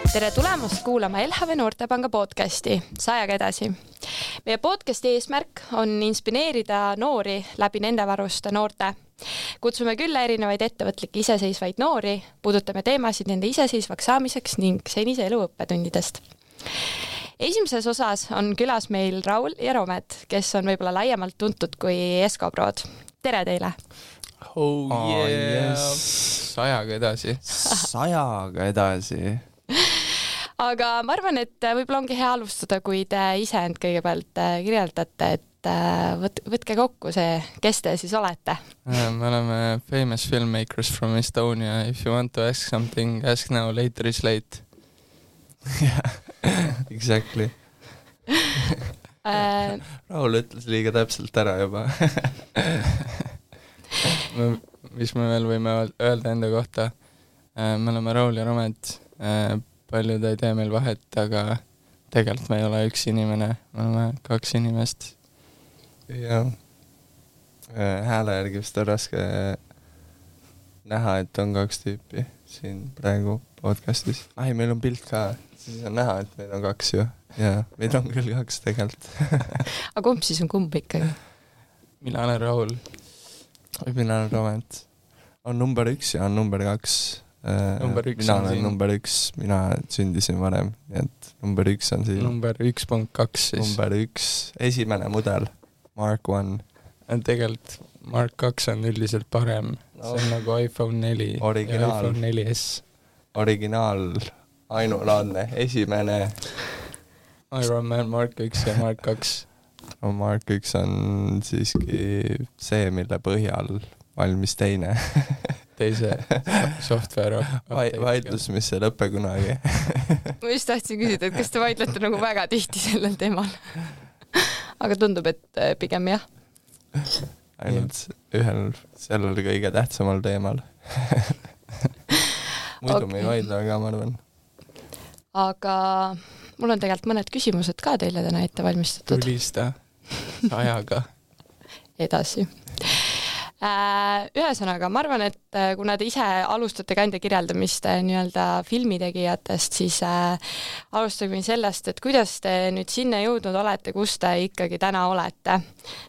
Tere tulemast kuulama LHV Noortepanga podcasti Sajaga edasi. Meie podcasti eesmärk on inspireerida noori läbi nende varuste noorte. Kutsume külla erinevaid ettevõtlikke iseseisvaid noori, puudutame teemasid nende iseseisvaks saamiseks ning senise elu õppetundidest. Esimeses osas on külas meil Raul ja Romet, kes on võib-olla laiemalt tuntud kui Eskoprood. Tere teile! Oh yeah! Sajaga edasi. Sajaga edasi. Aga ma arvan, et võib-olla ongi hea alustada, kui te ise end kõigepealt kirjeldate, et võtke kokku see, kes te siis olete. Me oleme famous filmmakers from Estonia. If you want to ask something, ask now, later is late. Yeah, exactly. Raul ütles liiga täpselt ära juba. Mis me veel võime öelda enda kohta? Me oleme Raul ja Romet. Paljud ei tee meil vahet, aga tegelikult me ei ole üks inimene, me oleme kaks inimest. Ja hääle järgi vist on raske näha, et on kaks tüüpi siin praegu podcastis. Meil on pilt ka, siis on näha, et meid on kaks ju. Ja meid on küll kaks tegelikult. Aga kumb siis on kumb ikkagi? Mina olen Raul. Mina olen Romet. On number 1 ja on number 2. Mina olen number 1, mina sündisin varem, nii et number 1 on siin. Number 1.2 siis. Number 1, esimene mudel, Mark 1. Tegelikult Mark 2 on üldiselt parem, see on nagu iPhone 4 originaal, ja iPhone 4S. Originaal, ainulaadne, esimene. Iron Man Mark 1 ja Mark 2. No, Mark 1 on siiski see, mille põhjal valmis teine. Teise software vaidlus, mis ei lõppe kunagi. Ma just tahtsin küsida, et kas te vaidlete nagu väga tihti sellel teemal? Aga tundub, et pigem jah. Ainult ühel sellel kõige tähtsamal teemal. Muidu me ei vaidle, aga ma arvan. Aga mul on tegelikult mõned küsimused ka teile täna ette valmistatud. Tulista Sajaga. Edasi. Ühesõnaga, ma arvan, et kuna te ise alustate ka enda kirjeldamist nii-öelda filmitegijatest, siis alustagem sellest, et kuidas te nüüd sinna jõudnud olete, kus te ikkagi täna olete.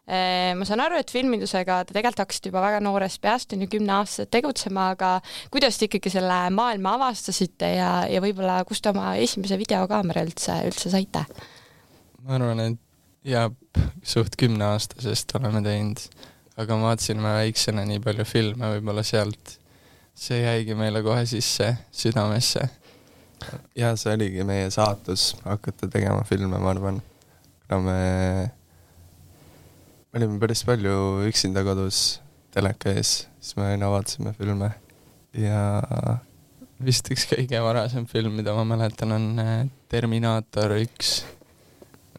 Ma saan aru, et filmindusega te tegelikult hakkasite juba väga noorest peast, 10 aastat tegutsema, aga kuidas te ikkagi selle maailma avastasite ja võib-olla kust te oma esimese videokaamera üldse saite? Ma arvan, et suht 10 aastasest oleme teinud. Aga ma vaatasin väiksena nii palju filme, võib-olla sealt see jäigi meile kohe sisse südamesse. Ja see oligi meie saatus hakata tegema filme, ma arvan. Me olime päris palju üksinda kodus teleka ees, siis me aina vaatasime filme. Ja vist üks kõige varasem film, mida ma mäletan, on Terminator 1.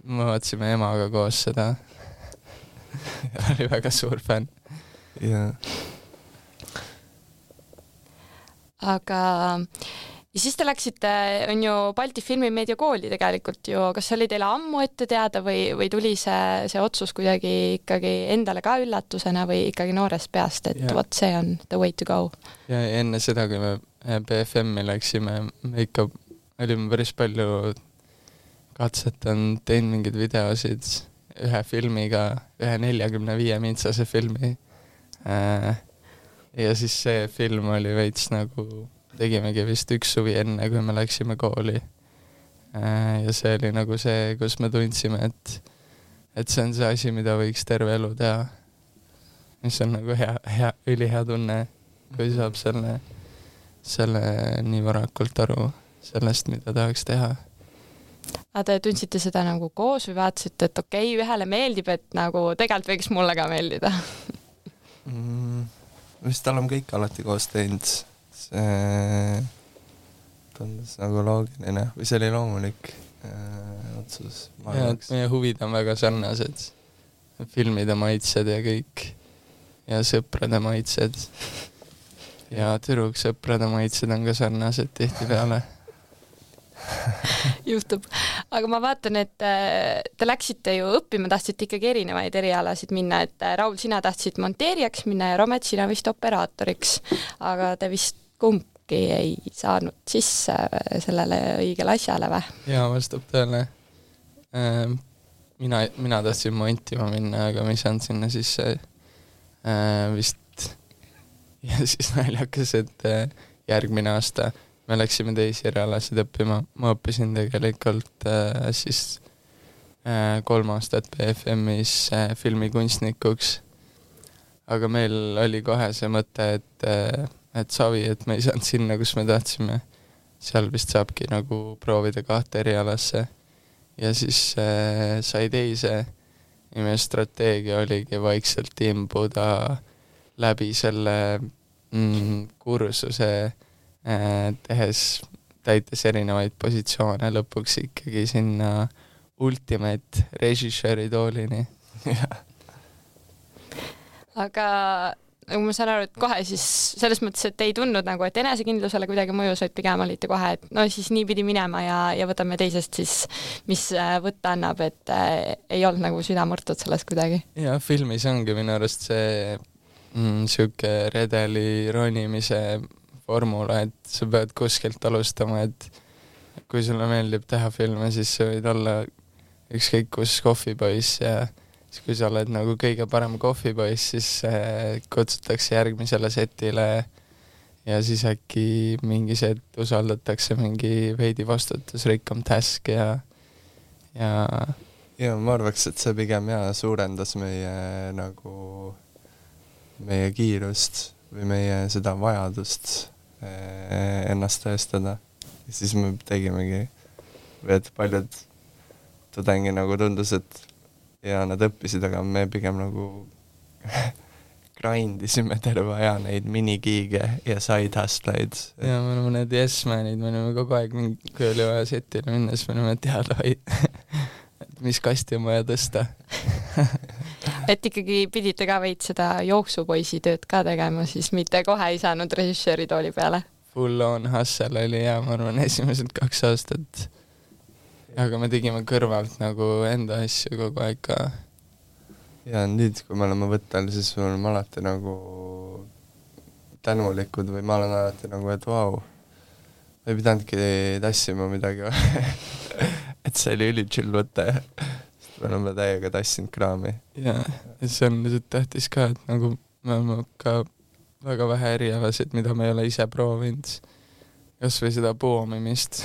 Me vaatasime emaga koos seda. Oli väga suur fänn. Yeah. Aga ja siis te läksite, on ju Balti Filmimeedia kooli tegelikult ju, kas see oli teile ammu ette teada või tuli see otsus kuidagi ikkagi endale ka üllatusena või ikkagi noorest peast, et vot see on the way to go? Ja enne seda, kui me BFM-i läksime, me ikka olime päris palju katsetanud, teinud mingeid videosid ühe filmiga, ühe 45-mintsase filmi. Ja siis see film oli veits nagu, tegimegi vist üks suvi enne, kui me läksime kooli. Ja see oli nagu see, kus me tundsime, et see on see asi, mida võiks terve elu teha. Mis on nagu ülihea tunne, kui saab selle nii varakult aru sellest, mida tahaks teha. Aga te tundsite seda nagu koos või vaatasite, et okei, ühele meeldib, et nagu tegelikult võiks mulle ka meeldida? Vist oleme kõik alati koos teinud. See tundus nagu loogiline või see oli loomulik otsus. Ja, meie huvid on väga sarnased. Filmide maitsed ja kõik. Ja sõprade maitsed. Ja tüdruksõprade maitsed on ka sarnased tihti peale. Juhtub. Aga ma vaatan, et te läksite ju õppima, tahtsite ikkagi erinevaid erialasid minna, et Raul, sina tahtsid monteerijaks minna ja Romet, sina vist operaatoriks. Aga te vist kuidagi ei saanud sisse sellele õigele asjale või? jaa, vastab tõele. Mina tahtsin montima minna, aga ma ei saanud sinna sisse vist. Ja siis naljakas, et järgmine aasta me läksime teisi erialasid õppima. Ma õppisin tegelikult siis 3 aastat BFM-is filmikunstnikuks. Aga meil oli kohe see mõte, et savi, et me ei saanud sinna, kus me tahtsime. Seal vist saabki nagu proovida 2 erialasse. Ja siis sai teise. Ja meie strateegia oligi vaikselt imbuda läbi selle kursuse täites erinevaid positsioone lõpuks ikkagi sinna ultimate režissööri toolini. Aga nagu ma saan aru, et kohe siis selles mõttes, et ei tundnud nagu, et enesekindlusele kuidagi mõjus, et pigem olite kohe, et no siis nii pidi minema ja võtame teisest siis, mis võtta annab, et ei olnud nagu süda murtud sellest kuidagi. Ja filmis ongi minu arust see siuke redeli ronimise formula, et sa pead kuskilt alustama, et kui sulle meeldib teha filme, siis sa võid olla ükskõik kus kohvipoiss ja siis kui sa oled nagu kõige parem kohvipoiss, siis kutsutakse järgmisele setile ja siis äkki mingi set usaldatakse mingi veidi vastutusrikkam task ja ma arvaks, et see pigem suurendas meie kiirust või meie seda vajadust ennast tõestada. Ja siis me tegimegi, et paljud tudengi nagu tundus, et ja nad õppisid, aga me pigem nagu grindisime terve aja neid minigiige ja side hustleid. Ja me oleme need yes-manid, me oleme kogu aeg, kui oli vaja setile minna, siis me oleme teada et mis kasti on vaja tõsta. Et ikkagi pidite ka veid seda jooksupoisi tööd ka tegema, siis mitte kohe ei saanud režissööri tooli peale? Full on hustle oli ma arvan esimesed 2 aastat. Aga me tegime kõrvalt nagu enda asju kogu aeg ka. Ja nüüd, kui me oleme võttel, siis me oleme alati nagu tänulikud või ma olen alati nagu, et vau, ei pidanudki tassima midagi et see oli ülichill võte. Me oleme täiega tassinud kraami. Ja see on lihtsalt tähtis ka, et nagu me oleme ka väga vähe erialasid, mida me ei ole ise proovinud. Kas või seda poomimist.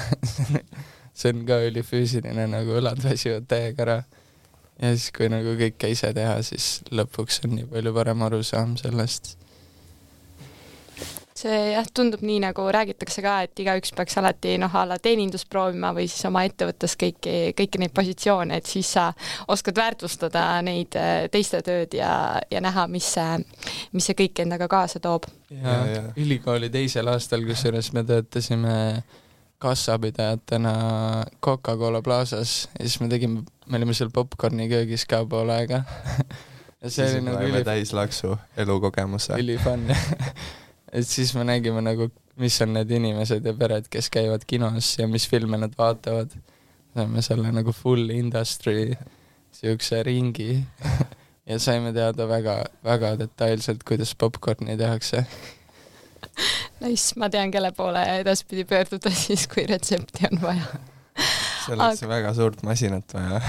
See on ka ülifüüsiline, nagu õlad väsivad täiega ära. Ja siis, kui nagu kõike ise teha, siis lõpuks on nii palju parem arusaam sellest. See tundub nii, nagu räägitakse ka, et igaüks peaks alati ala teenindust proovima või siis oma ettevõttes kõiki neid positsioone, et siis sa oskad väärtustada neid teiste tööd ja näha, mis see kõik endaga kaasa toob. Ja ülikooli 2. aastal, kusjuures me töötasime kassapidajatena Coca-Cola Plaazas ja siis me olime seal popcorni köögis ka pool aega. Ja see siis oli nagu täislaksu elukogemuse. Ülifun. Et siis me nägime nagu, mis on need inimesed ja pered, kes käivad kinos ja mis filme nad vaatavad. Saime selle nagu full industry siukse ringi ja saime teada väga, väga detailselt, kuidas popcorni tehakse. Nice, ma tean, kelle poole edaspidi pöörduda siis, kui retsepti on vaja. Selleks väga suurt masinat vaja.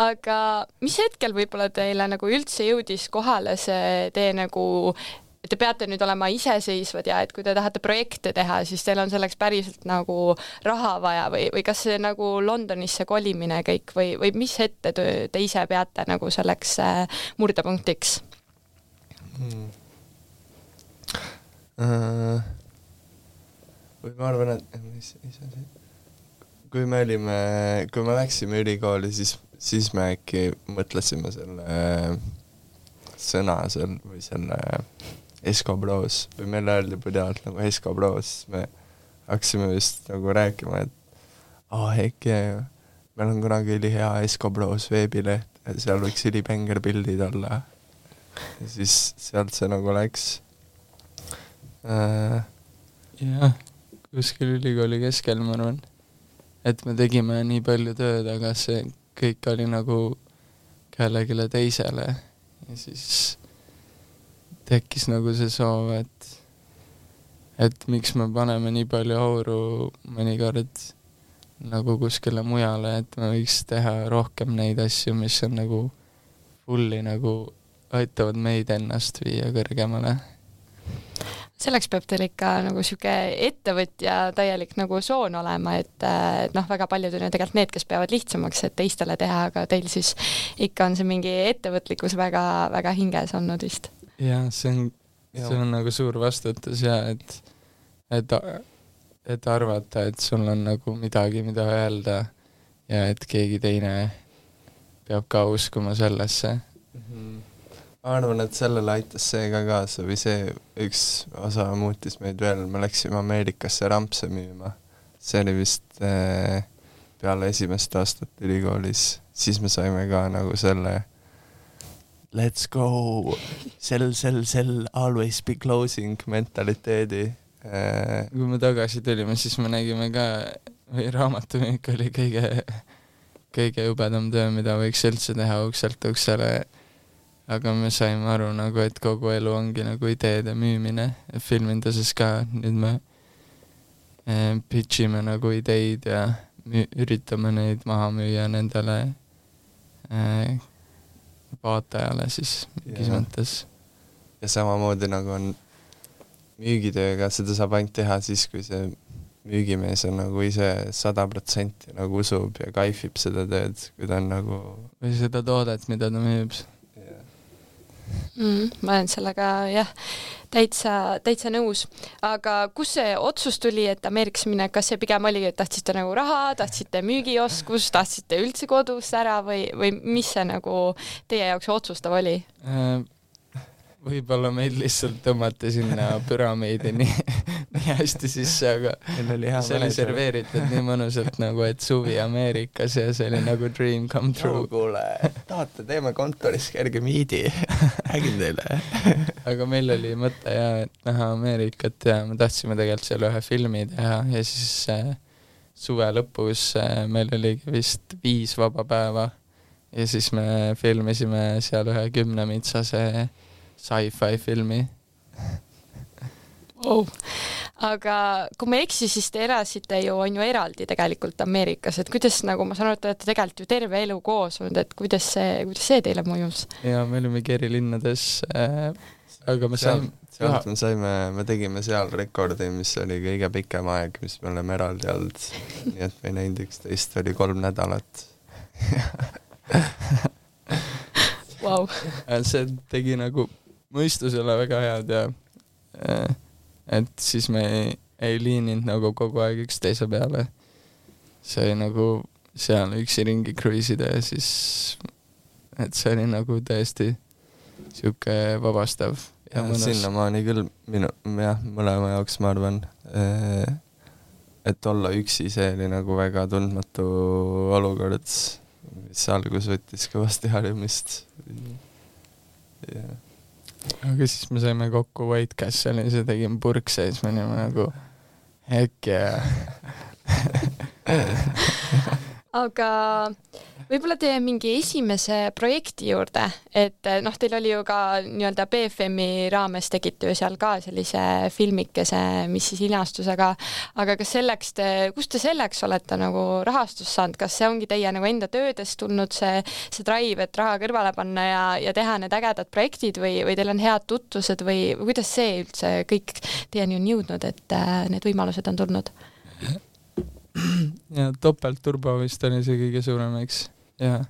Aga mis hetkel võib-olla teile nagu üldse jõudis kohale see tee nagu, et te peate nüüd olema iseseisvad ja et kui te tahate projekte teha, siis teil on selleks päriselt nagu raha vaja või kas see nagu Londonisse kolimine kõik või mis ette te ise peate nagu selleks murdepunktiks? Või ma arvan, et kui me läksime ülikooli, siis me äkki mõtlesime selle sõna seal või selle Escobros või meile öeldi pidevalt nagu Escobros, me hakkasime vist nagu rääkima, et äkki meil on kunagi ülihea Escobros veebileht, seal võiks ülipänger pildid olla. Ja siis sealt see nagu läks. Jah, kuskil ülikooli keskel ma arvan, et me tegime nii palju tööd, aga see kõik oli nagu kellegile teisele ja siis tekkis nagu see soov, et miks me paneme nii palju auru mõnikord nagu kuskile mujale, et me võiks teha rohkem neid asju, mis on nagu fulli nagu aitavad meid ennast viia kõrgemale. Selleks peab teil ikka nagu siuke ettevõtja täielik nagu soon olema, et noh, väga paljud on ju tegelikult need, kes peavad lihtsamaks, et teistele teha, aga teil siis ikka on see mingi ettevõtlikkus väga, väga hinges olnud vist. Ja, see on nagu suur vastutus ja et arvata, et sul on nagu midagi, mida öelda ja et keegi teine peab ka uskuma sellesse. Ma arvan, et sellele aitas see ka kaasa või see üks osa muutis meid veel. Me läksime Ameerikasse rampse müüma. See oli vist peale esimest aastat ülikoolis. Siis me saime ka nagu selle let's go, sell, always be closing mentaliteedi. Kui me tagasi tulime, siis me nägime ka, või raamatumüük oli kõige jubedam töö, mida võiks üldse teha ukselt uksele. Aga me saime aru nagu, et kogu elu ongi nagu ideede müümine. Filminduses ka nüüd me pitchime nagu ideid ja üritame neid maha müüa nendele vaatajale siis mingis mõttes. Ja samamoodi nagu on müügitööga, seda saab ainult teha siis, kui see müügimees on nagu ise 100% nagu usub ja kaifib seda tööd, kui ta on nagu... Või seda toodet, mida ta müüb. Ma olen sellega jah, täitsa nõus. Aga kus see otsus tuli, et Ameerikasse minna, kas see pigem oli, et tahtsite nagu raha, tahtsite müügioskus, tahtsite üldse kodus ära või mis see nagu teie jaoks otsustav oli? Võib-olla meid lihtsalt tõmmati sinna püramiidi nii hästi sisse, aga see oli serveeritud nii mõnusalt nagu, et suvi Ameerikas ja see oli nagu dream come true. Kuule, tahate, teeme kontoris kerge miidi, räägin teile. Aga meil oli mõte ja, et näha Ameerikat ja me tahtsime tegelikult seal ühe filmi teha ja siis suve lõpus meil oli vist 5 vaba päeva ja siis me filmisime seal ühe 10-mitsase sci-fi filmi. Wow. Aga kui ma eksi, siis te elasite ju, on ju eraldi tegelikult Ameerikas, et kuidas nagu ma saan aru, et olete tegelikult ju terve elu koos olnud, et kuidas see teile mõjus? Ja me olimegi eri linnades, aga me tegime seal rekordi, mis oli kõige pikem aeg, mis me oleme eraldi olnud, nii et me ei näinud üksteist, oli 3 nädalat. Wow. See tegi nagu mõistusele väga head ja et siis me ei liininud nagu kogu aeg üksteise peale. See oli nagu seal üksi ringi kruiisida ja siis et see oli nagu tõesti siuke vabastav ja mõnus. Sinnamaani küll mõlema jaoks ma arvan, et olla üksi, see oli nagu väga tundmatu olukord, mis algus võttis kõvasti harjumist. Yeah. Aga siis me saime kokku White Castle'is ja tegime purkse ja siis me olime nagu heck yeah. Aga võib-olla teie mingi esimese projekti juurde, et noh, teil oli ju ka nii-öelda BFM-i raames tegite ju seal ka sellise filmikese, mis siis linastus, aga kas kust te selleks olete nagu rahastust saanud, kas see ongi teie nagu enda töödest tulnud see drive, et raha kõrvale panna ja teha need ägedad projektid või teil on head tutvused või kuidas see üldse kõik teieni on jõudnud, et need võimalused on tulnud? Ja topeltturbo vist oli see kõige suurem, eks. Ja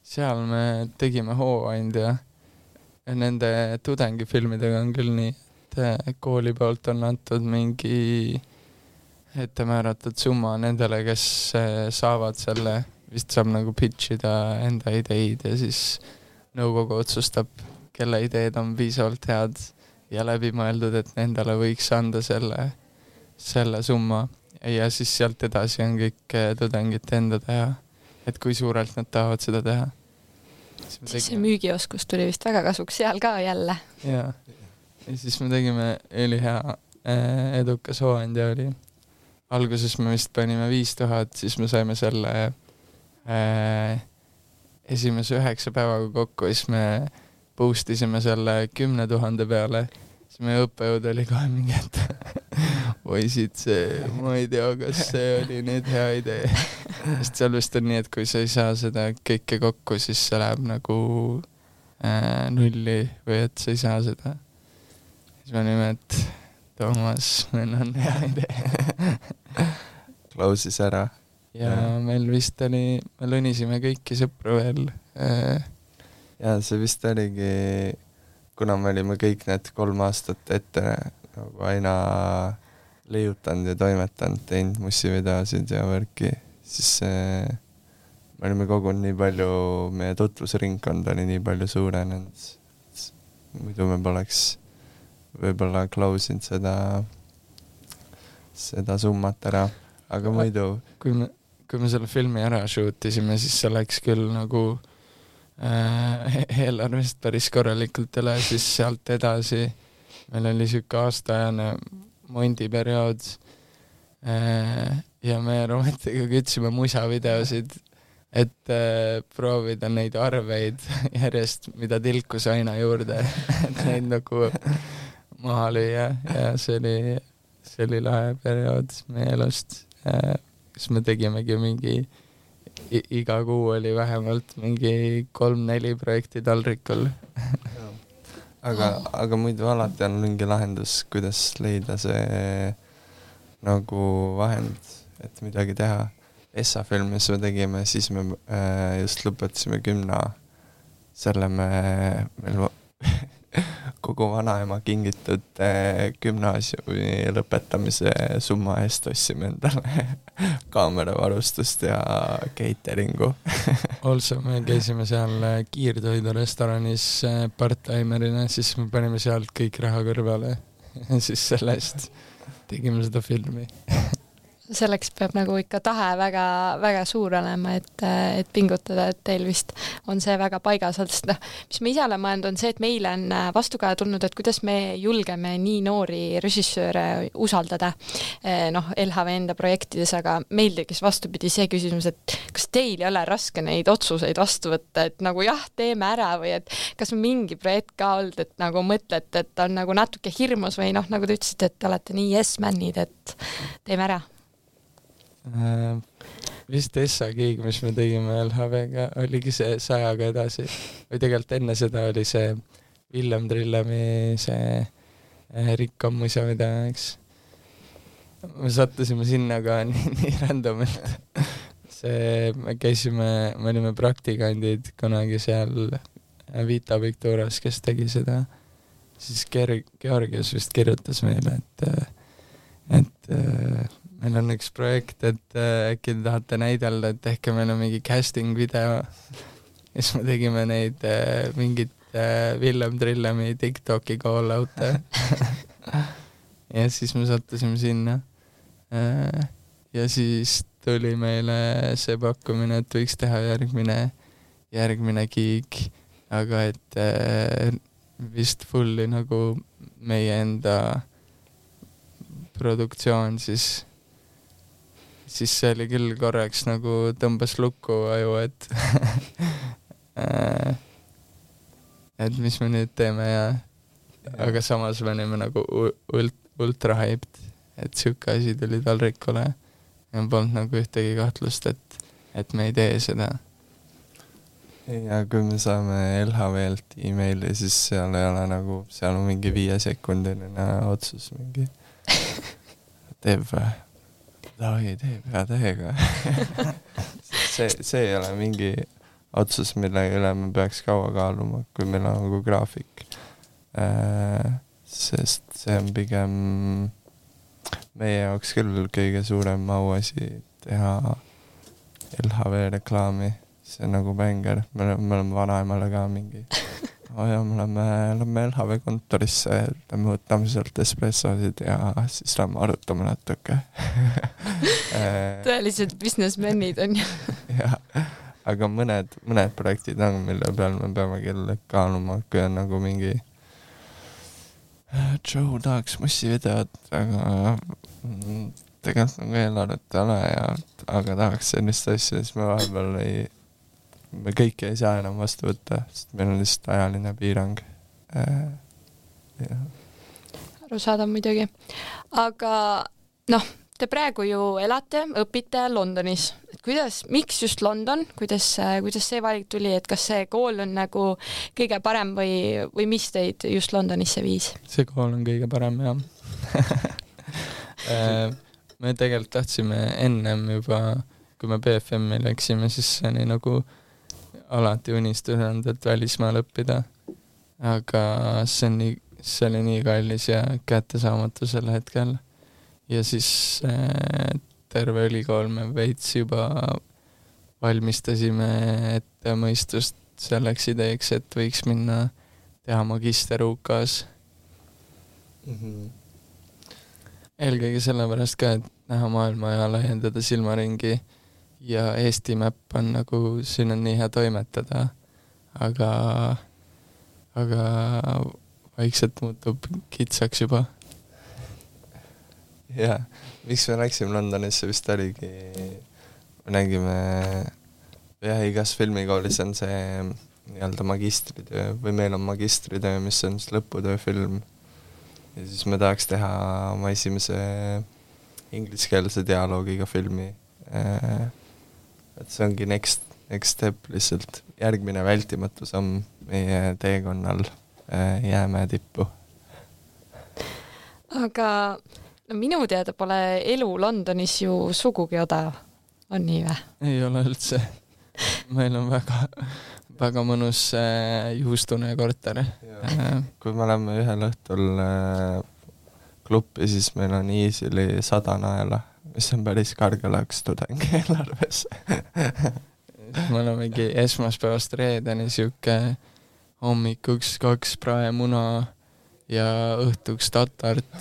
seal me tegime hooandja ja nende tudengifilmidega on küll nii, et kooli poolt on antud mingi ettemääratud summa nendele, kes saavad selle, vist saab nagu pitchida enda ideid ja siis nõukogu otsustab, kelle ideed on piisavalt head ja läbimõeldud, et nendele võiks anda selle summa. Ja siis sealt edasi on kõik tudengite enda teha, et kui suurelt nad tahavad seda teha. Siis see müügioskus tuli vist väga kasuks seal ka jälle. Ja siis me tegime ülihea edukas hooandja oli. Alguses me vist panime 5000, siis me saime selle esimese 9 päevaga kokku, siis me boostisime selle 10 000 peale. Siis meie õppejõud oli kohe mingi, et poisid, ma ei tea, kas see oli nüüd hea idee. Sest seal vist on nii, et kui sa ei saa seda kõike kokku, siis see läheb nagu nulli või et sa ei saa seda. Siis me olime, et Toomas, meil on hea idee. Klausis ära. Ja meil vist oli, me lõnisime kõiki sõpru veel. Ja see vist oligi, kuna me olime kõik need 3 aastat ette nagu aina leiutanud ja toimetanud, teinud mussivideosid ja värki, siis me olime kogunud nii palju, meie tutvusringkond oli nii palju suurenenud. Muidu me poleks võib-olla klausinud seda summat ära, aga muidu... Kui me selle filmi ära shootisime, siis see läks küll nagu eelarvest päris korralikult üle, siis sealt edasi meil oli siuke aastaajane mondiperiood ja me Rometiga kütsime musavideosid, et proovida neid arveid järjest, mida tilkus aina juurde, et neid nagu maha lüüa ja see oli lahe periood meie elust, kus me tegimegi mingi iga kuu oli vähemalt mingi 3-4 projekti taldrikul. aga muidu alati on mingi lahendus, kuidas leida see nagu vahend, et midagi teha. Essa filmis me tegime, siis me just lõpetasime 10. Selle meil kogu vanaema kingitud gümnaasiumi lõpetamise summa eest ostsime endale kaameravarustust ja cateringu. Also me käisime seal kiirtoidu restoranis part-timerina, siis me panime sealt kõik raha kõrvale ja siis sellest tegime seda filmi. Selleks peab nagu ikka tahe väga, väga suur olema, et pingutada, et teil vist on see väga paigas. Mis me ise oleme mõelnud, on see, et meile on vastukaja tulnud, et kuidas me julgeme nii noori režissööre usaldada LHV enda projektides, aga meil tekkis vastupidi see küsimus, et kas teil ei ole raske neid otsuseid vastu võtta, et nagu jah, teeme ära või et kas on mingi projekt ka olnud, et nagu mõtlete, et on nagu natuke hirmus või nagu te ütlesite, et olete nii yes-manid, et teeme ära? Vist Essa gig, mis me tegime LHV-ga, oligi see 100-ga edasi või tegelikult enne seda oli see Villem Trillemi see Rikkam musa video, eks me sattusime sinna ka nii randomilt me olime praktikandid kunagi seal Vita Victorias, kes tegi seda, siis Georgios vist kirjutas meile, et meil on üks projekt, et äkki te tahate näidelda, et tehke meil on mingi casting video. Siis me tegime neid mingit Villem Trillemi TikToki call-out'e. Ja siis me sattusime sinna. Ja siis tuli meile see pakkumine, et võiks teha järgmine gig, aga et vist fulli nagu meie enda produktsioon, siis see oli küll korraks nagu tõmbas lukku aju, et mis me nüüd teeme ja aga samas me olime nagu ultra hyped, et siuke asi tuli taldrikule ja polnud nagu ühtegi kahtlust, et me ei tee seda. Ja kui me saame LHV-lt e-maili, siis seal ei ole nagu, seal on mingi 5-sekundiline otsus mingi teeb või? Davai, teeb hea tähega. see ei ole mingi otsus, mille üle me peaks kaua kaaluma, kui meil on nagu graafik. Sest see on pigem meie jaoks küll kõige suurem auasi teha LHV reklaami. See on nagu bänger. Me oleme vanaemale ka mingi ja me oleme LHV kontorisse, me võtame sealt espressosid ja siis lähme arutame natuke. Tõelised businessmenid on ju. Jah, aga mõned projektid on, mille peal me peame küll kaaluma, kui on nagu mingi Joe tahaks mussivideot, aga tegelikult nagu eelarvet ole aga tahaks sellist asja, siis me vahepeal me kõike ei saa enam vastu võtta, sest meil on lihtsalt ajaline piirang. arusaadav muidugi. Aga noh, te praegu ju elate, õpite Londonis. Miks just London? Kuidas see valik tuli, et kas see kool on nagu kõige parem või mis teid just Londonisse viis? See kool on kõige parem, jah. Me tegelikult tahtsime ennem juba, kui me BFM-i läksime, siis see oli nagu alati unistusanud, et välismaal õppida. Aga see oli nii kallis ja kättesaamatu sel hetkel. Ja siis terve ülikool me veits juba valmistasime ette mõistust selleks ideeks, et võiks minna teha magister UK-s. Eelkõige sellepärast ka, et näha maailma ja laiendada silmaringi ja Eesti mäpp on nagu, siin on nii hea toimetada, aga vaikselt muutub kitsaks juba. Jaa, miks me läksime Londonisse vist oligi, me nägime, igas filmikoolis on see nii-öelda magistritöö või meil on magistritöö, mis on siis lõputööfilm. Ja siis me tahaks teha oma esimese ingliskeelse dialoogiga filmi. Et see ongi next step lihtsalt, järgmine vältimatu samm meie teekonnal Jäämäe tippu. Aga no minu teada pole elu Londonis ju sugugi odav, on nii või? Ei ole üldse. Meil on väga mõnus juhustune korter. Kui me oleme ühel õhtul kluppi, siis meil on easily 100 naela, mis on päris kargelaks tudengi eelarves. Me olemegi esmaspäevast reedeni siuke hommikuks 2 praemuna ja õhtuks tatart,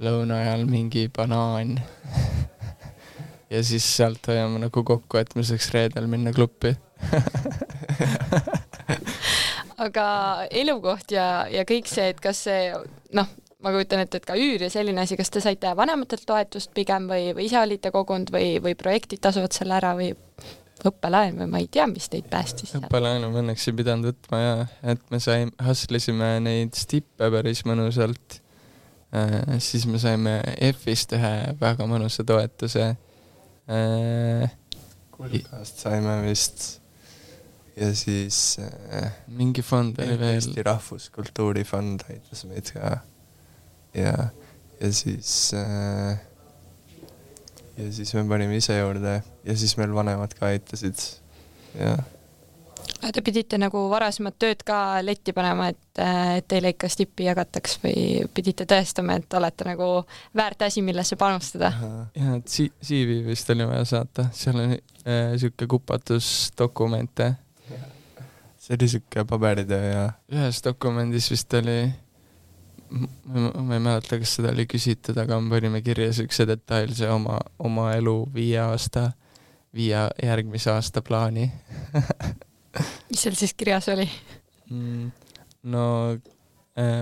lõuna ajal mingi banaan. Ja siis sealt hoiame nagu kokku, et me saaks reedel minna kluppi. Aga elukoht ja kõik see, et kas see, noh, ma kujutan ette, et ka üür ja selline asi, kas te saite vanematelt toetust pigem või ise olite kogunud või projektid tasuvad selle ära või õppelaen või ma ei tea, mis teid päästis? Õppelaenu me õnneks ei pidanud võtma ja et me hustlisime neid stippe päris mõnusalt. Siis me saime F-ist ühe väga mõnusa toetuse. Kulkast saime vist ja siis mingi fond oli veel. Eesti Rahvuskultuurifond aitas meid ka ja siis me panime ise juurde ja siis meil vanemad ka aitasid ja. Te pidite nagu varasemad tööd ka letti panema, et teile ikka stippi jagataks või pidite tõestama, et olete nagu väärt asi, millesse panustada? Ja CV vist oli vaja saata, seal oli siuke kupatusdokumente. See oli siuke paberitöö ja ühes dokumendis vist oli, ma ei mäleta, kas seda oli küsitud, aga me panime kirja siukse detailse oma elu 5 järgmise aasta plaani. Mis seal siis kirjas oli? No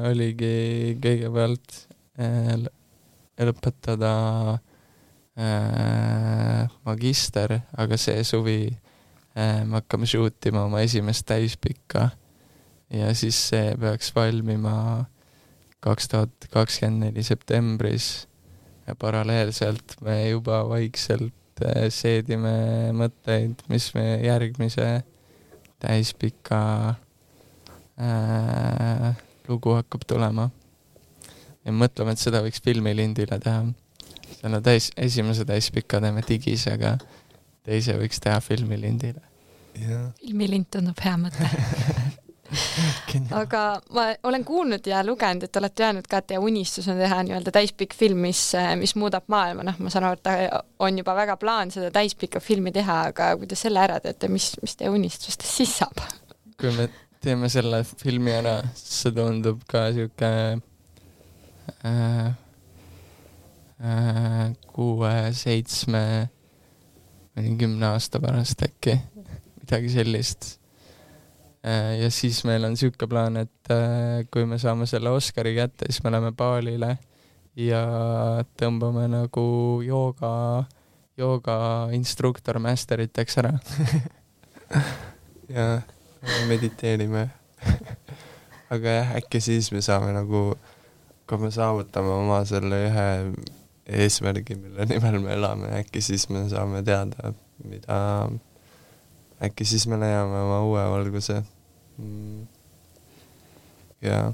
oligi kõigepealt lõpetada magister, aga see suvi me hakkame shootima oma esimest täispikka ja siis see peaks valmima 2024 septembris ja paralleelselt me juba vaikselt seedime mõtteid, mis me järgmise täispika lugu hakkab tulema. Ja mõtleme, et seda võiks filmilindile teha. Selle esimese täispika teeme digis, aga teise võiks teha filmilindile. Filmilind tundub hea mõte. Aga ma olen kuulnud ja lugenud, et olete öelnud ka, et teie unistus on teha nii-öelda täispikk film, mis muudab maailma. Ma saan aru, et on juba väga plaan seda täispikka filmi teha, aga kuidas selle ära teete, mis teie unistustest siis saab? Kui me teeme selle filmi ära, see tundub ka siuke 6-7 või 10 aasta pärast äkki midagi sellist. Ja siis meil on siuke plaan, et kui me saame selle Oscari kätte, siis me läheme baalile ja tõmbame nagu jooga instruktor masteriteks ära. Ja mediteerime. Aga jah, äkki siis me saame nagu kui me saavutame oma selle ühe eesmärgi, mille nimel me elame, äkki siis me saame teada, mida, äkki siis me leiame oma uue valguse. Jaa.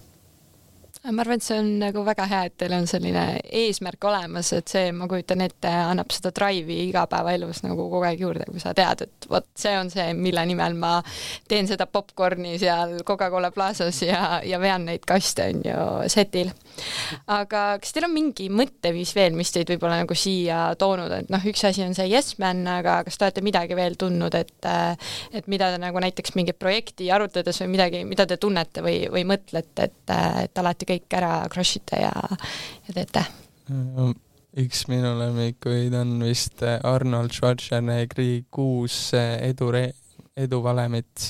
Ma arvan, et see on nagu väga hea, et teil on selline eesmärk olemas, et see, ma kujutan ette, annab seda drive'i igapäevaelus nagu kogu aeg juurde, kui sa tead, et vot see on see, mille nimel ma teen seda popcorni seal Coca-Cola Plazas ja vean neid kaste on ju setil. Aga kas teil on mingi mõtteviis veel, mis teid võib-olla nagu siia toonud, et noh, üks asi on see Yes Man, aga kas te olete midagi veel tundnud, et mida te nagu näiteks mingit projekti arutades või midagi, mida te tunnete või mõtlete, et alati kõik ära crushite ja teete? Üks minu lemmikuid on vist Arnold Schwarzeneggeri 6 eduvalemit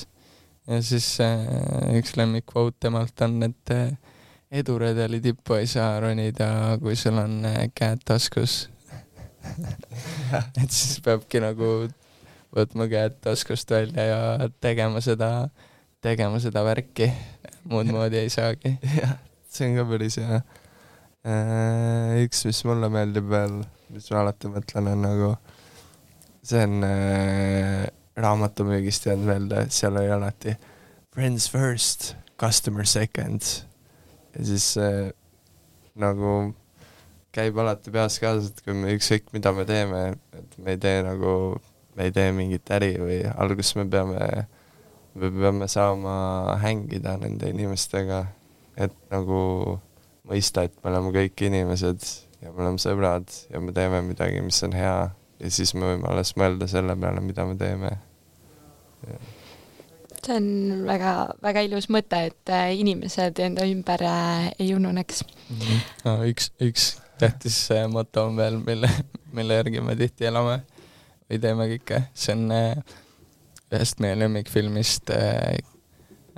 ja siis üks lemmikvoot temalt on, et eduredeli tippu ei saa ronida, kui sul on käed taskus. Et siis peabki nagu võtma käed taskust välja ja tegema seda värki. Muud moodi ei saagi. Jah, see on ka päris hea. Üks, mis mulle meeldib veel, mis ma alati mõtlen, on nagu see on raamatumüügist jäänud meelde, seal oli alati friends first, customer second ja siis nagu käib alati peas kaasa, et kui me ükskõik mida me teeme, et me ei tee mingit äri või alguses me peame saama hängida nende inimestega, et nagu mõista, et me oleme kõik inimesed ja me oleme sõbrad ja me teeme midagi, mis on hea ja siis me võime alles mõelda selle peale, mida me teeme. Ja. See on väga, väga ilus mõte, et inimesed enda ümber ei ununeks. No, üks tähtis moto on veel, mille järgi me tihti elame või teeme kõike. See on ühest meie lemmikfilmist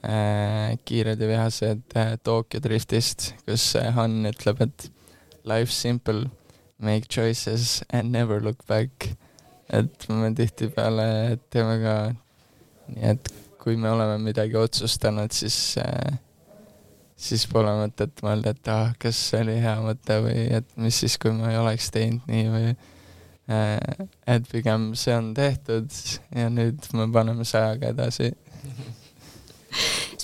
Kiired ja vihased Tokyo Driftist, kus Han ütleb, et life's simple, make choices and never look back. Et me tihti peale teeme ka nii, et kui me oleme midagi otsustanud, siis pole mõtet mõelda, et kas see oli hea mõte või et mis siis, kui ma ei oleks teinud nii või et pigem see on tehtud ja nüüd me paneme 100-ga edasi.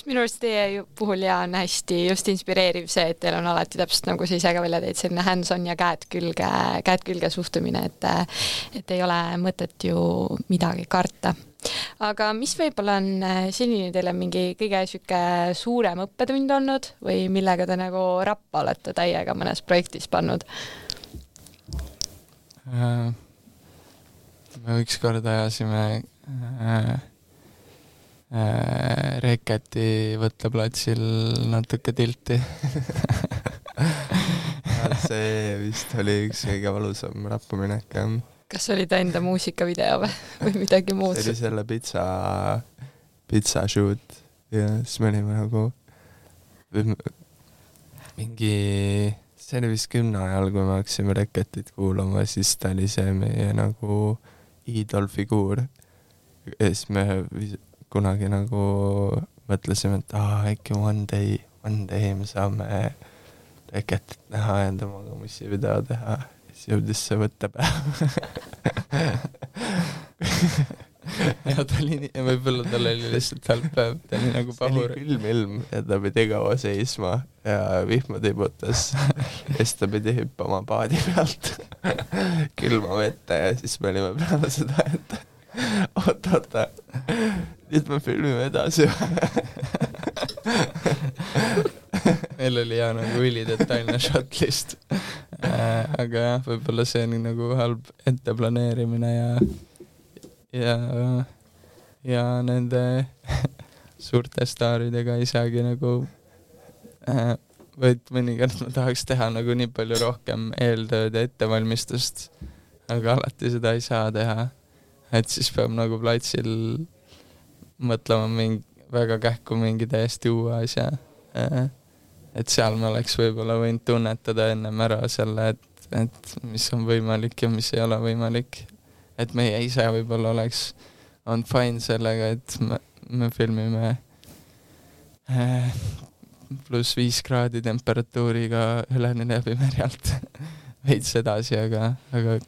Minu arust teie puhul ja on hästi just inspireeriv see, et teil on alati täpselt nagu sa ise ka välja teid selline hands-on ja käed külge suhtumine, et ei ole mõtet ju midagi karta. Aga mis võib-olla on selline teile mingi kõige süke suurem õppetund olnud või millega te nagu rappa olete täiega mõnes projektis pannud? Me ükskord ajasime Reketi võtteplatsil natuke tilti. See vist oli üks kõige valusam rappaminek. Kas oli ta enda muusikavideo või midagi muud? See oli selle pizza shoot ja siis me olime nagu see oli vist 10 ajal, kui me hakkasime Reketit kuulama, siis ta oli see meie nagu iidolfiguur ja siis me kunagi nagu mõtlesime, et äkki one day me saame Reketit näha ja temaga mussivideo teha. Siis jõudis see võttepäev. Ja võib-olla tal oli lihtsalt halb päev, ta oli nagu pahur. See oli külm ilm ja ta pidi kaua seisma ja vihma tibutas ja siis ta pidi hüppama paadi pealt külma vette ja siis me olime peale seda, et oota, nüüd me filmime edasi. Meil oli hea nagu ülidetailne shotlist. Aga jah, võib-olla see oli nagu halb etteplaneerimine ja nende suurte staaridega ei saagi nagu võid mõnikord ma tahaks teha nagu nii palju rohkem eeltööd ja ettevalmistust, aga alati seda ei saa teha, et siis peab nagu platsil mõtlema väga kähku mingi täiesti uue asja, et seal me oleks võib-olla võinud tunnetada ennem ära selle, et mis on võimalik ja mis ei ole võimalik. Et meie ise võib-olla on fine sellega, et me filmime +5 kraadi temperatuuriga üleni läbi merjalt veits edasi, aga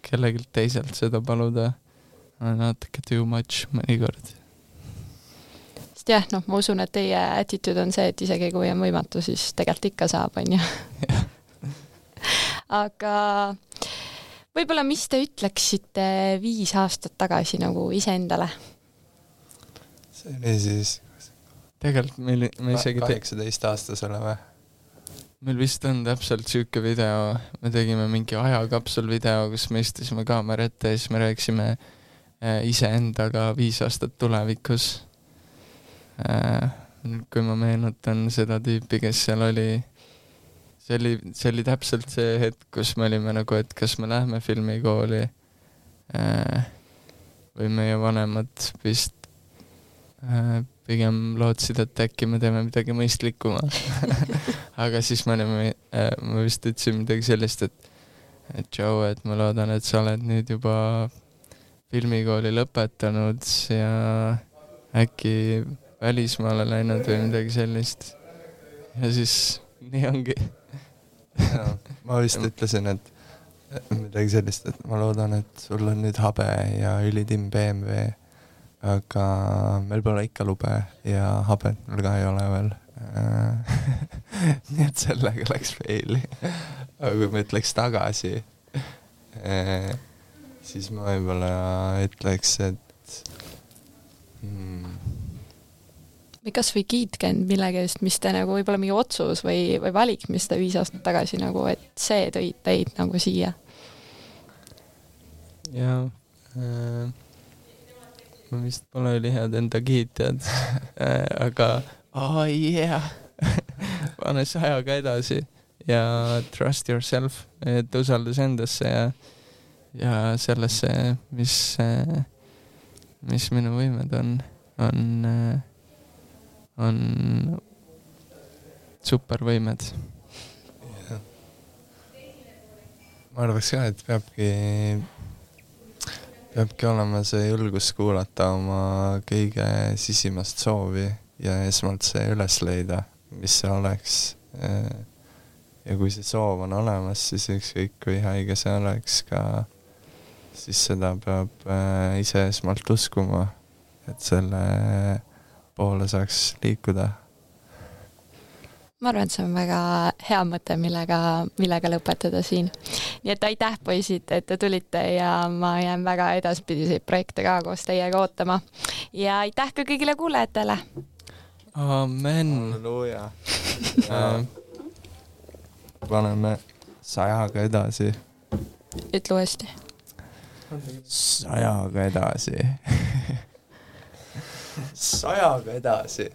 kellelgi teiselt seda paluda on natuke too much mõnikord. Sest jah, ma usun, et teie attitude on see, et isegi kui on võimatu, siis tegelikult ikka saab, on ju. Aga võib-olla mis te ütleksite 5 aastat tagasi nagu iseendale? See oli siis tegelikult me isegi 18-aastasele või? Meil vist on täpselt siuke video, me tegime mingi ajakapsul video, kus me istusime kaamera ette ja siis me rääksime iseendaga 5 aastat tulevikus. Kui ma meenutan seda tüüpi, kes seal oli, see oli täpselt see hetk, kus me olime nagu, et kas me lähme filmikooli või meie vanemad vist pigem lootsid, et äkki me teeme midagi mõistlikuma. Aga siis me vist ütlesime midagi sellist, et Joe, et ma loodan, et sa oled nüüd juba filmikooli lõpetanud ja äkki välismaale läinud või midagi sellist. Ja siis nii ongi. Ja, ma vist ütlesin, et midagi sellist, et ma loodan, et sul on nüüd habe ja ülitimm BMW, aga meil pole ikka lube ja habet mul ka ei ole veel. Nii et sellega läks faili. Aga kui ma ütleks tagasi, siis ma võib-olla ütleks, et või kas või kiitke end millegi eest, mis te nagu võib-olla mingi otsus või valik, mis te 5 aastat tagasi nagu, et see tõid teid nagu siia. Ja ma vist pole ülihäad enda kiitjad, aga pane see ajaga edasi ja trust yourself, et usaldas endasse ja sellesse, mis minu võimed on supervõimed. Ma arvaks ka, et peabki olema see julgus kuulata oma kõige sisimast soovi ja esmalt see üles leida, mis see oleks. Ja kui see soov on olemas, siis ükskõik kui haige see oleks ka, siis seda peab ise esmalt uskuma, et selle poole saaks liikuda. Ma arvan, et see on väga hea mõte, millega lõpetada siin. Nii et aitäh, poisid, et te tulite ja ma jään väga edaspidiseid projekte ka koos teiega ootama. Ja aitäh ka kõigile kuulajatele. Amen. Halleluuja. Paneme 100-ga edasi. Ütle uuesti. 100-ga edasi. 100-ga edasi.